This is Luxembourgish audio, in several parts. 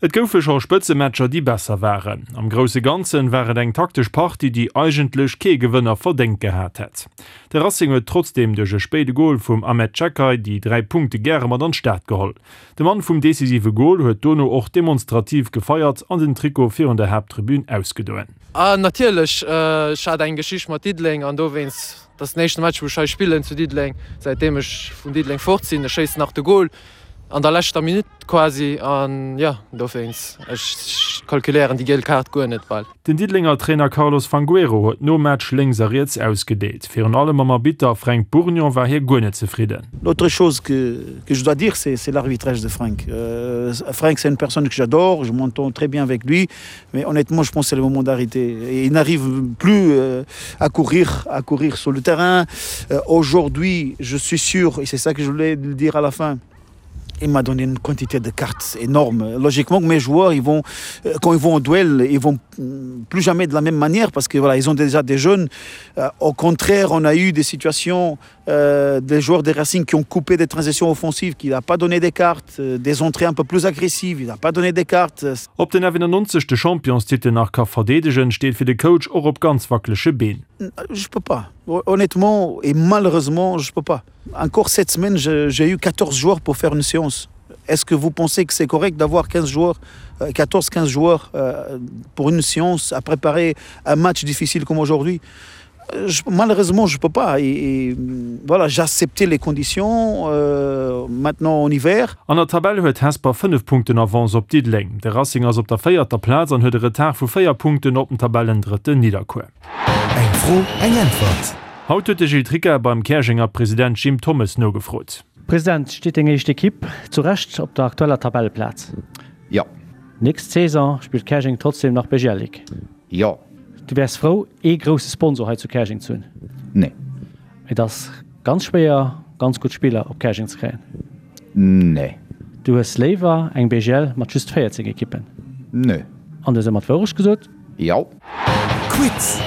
Et goufe scho Spëtzematcher, déi besser waren. Am grousse Ganzen war et eng taktesch Partie, déi eigentlech kee Gewënner verdéngt gehat hätt. De Racing huet trotzdeem duerch e spéide Gol vum Ahmed Çakay déi 3 Punkte gäre mat an d'Stad geholl. De Mann vum decisive Gol huet dono och demonstrativ gefeiert an den Trikot virun der Haapttribün ausgedoen. Ah natierlech, ech hat eng Geschicht mat Diddeleng an dowéinst, dat ass den éischte Match wou ech hei spillen zu Diddeleng säitdeem ech vun Diddeleng fort sinn. Ech schéissen nach de Gol an der leschter Minutt quasi an jo dowéinst, ech kalkuléieren déi giel Kaart guer net bal. Den Diddelenger Trainer Carlos Fangueiro huet nom Match lénks a riets ausgedeelt. Virun allem mam Arbitter Fränk Bourgnon war hie guer net zefridden. L'autre chose que que je dois dire c'est c'est l'arbitrage de Frank. Frank c'est une personne que j'adore, je m'entends très bien avec lui, mais honnêtement je pense c'est le moment d'arrêter. Il n'arrive plus à courir à courir sur le terrain. Aujourd'hui je suis sûr et c'est ça que je voulais dire à la fin, il m'a donné une quantité de cartes énorme. Logiquement, mes joueurs, ils vont, euh, quand ils vont au duel, ils vont plus jamais de la même manière parce que voilà, ils ont déjà des jeunes. Euh, au contraire, on a eu des situations euh, des joueurs des Racing qui ont coupé des transitions offensives, qui n'a pas donné des cartes, euh, des entrées un peu plus agressives, il n'a pas donné des cartes. Ob den FNC de Championstitel nach ka verdeedegen, steet fir de Coach och op ganz wackelege Been. Je peux pas. Honnêtement et malheureusement, je peux pas. Encore cette semaine, j'ai eu 14 joueurs pour faire une séance. Est-ce que vous pensez que c'est correct d'avoir 15 joueurs 14 15 joueurs euh, pour une séance à préparer un match difficile comme aujourd'hui je, malheureusement je peux pas et, et voilà j'ai accepté les conditions euh, maintenant en hiver. An der Tabell huet Hesper 5 Punkten Avance op Diddeleng. De Racing ass op der véierter Plaz an huet e Retard vu 4 Punkten op den Tabellendrëtten Nidderkuer. Eng Fro, eng Äntwert. Haut huet de Gilles Tricca beim Käerjenger President Jim Thommes nogefrot. President, steet deng éischt Ekipp zu Recht op der aktueller Tabelleplaz? Jo. Nächst Saison spillt Käerjeng trotzdem nach BGL Ligue? Jo. Du wäers frou ee grousse Sponsor hei zu Käerjeng ze hunn? Nee. Et ass ganz schwéier ganz gutt Spiller op Käerjeng ze kréien? Nee. Du hues léiwer eng BGL mat just 14 Ekippen? Nee. An du hues ëmmer d'Wourecht gesot? Jo. Quiz!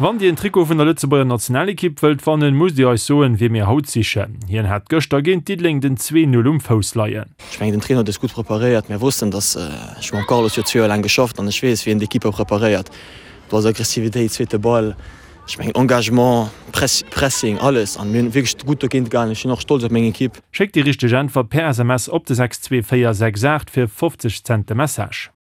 Wann Dir en Trikot vun der Lëtzebuerger Nationalekipp wëllt wannen, musst Dir eis soen, wie mir haut sichen. Hien hat gëschter géint Diddeleng den 2, 0 um Fouss leien. Ech mengen den Trainer huet eis gutt preparéiert. Mir wossten, datt ech hu mam Carlos jo zwee Joer laang geschafft an ech weess, wéi en d'Ekippe preparéiert. Do ass Aggressivitéit, zweete Ball, ech mengen Engagement, Press, Pressing, alles an mir hunn wierklech gutt dogéint gehalen. Ech sinn och stolz op meng Ekipp. Schéckt déi richteg Äntwert per SMS op de 62468 fir 50 Cent de Message.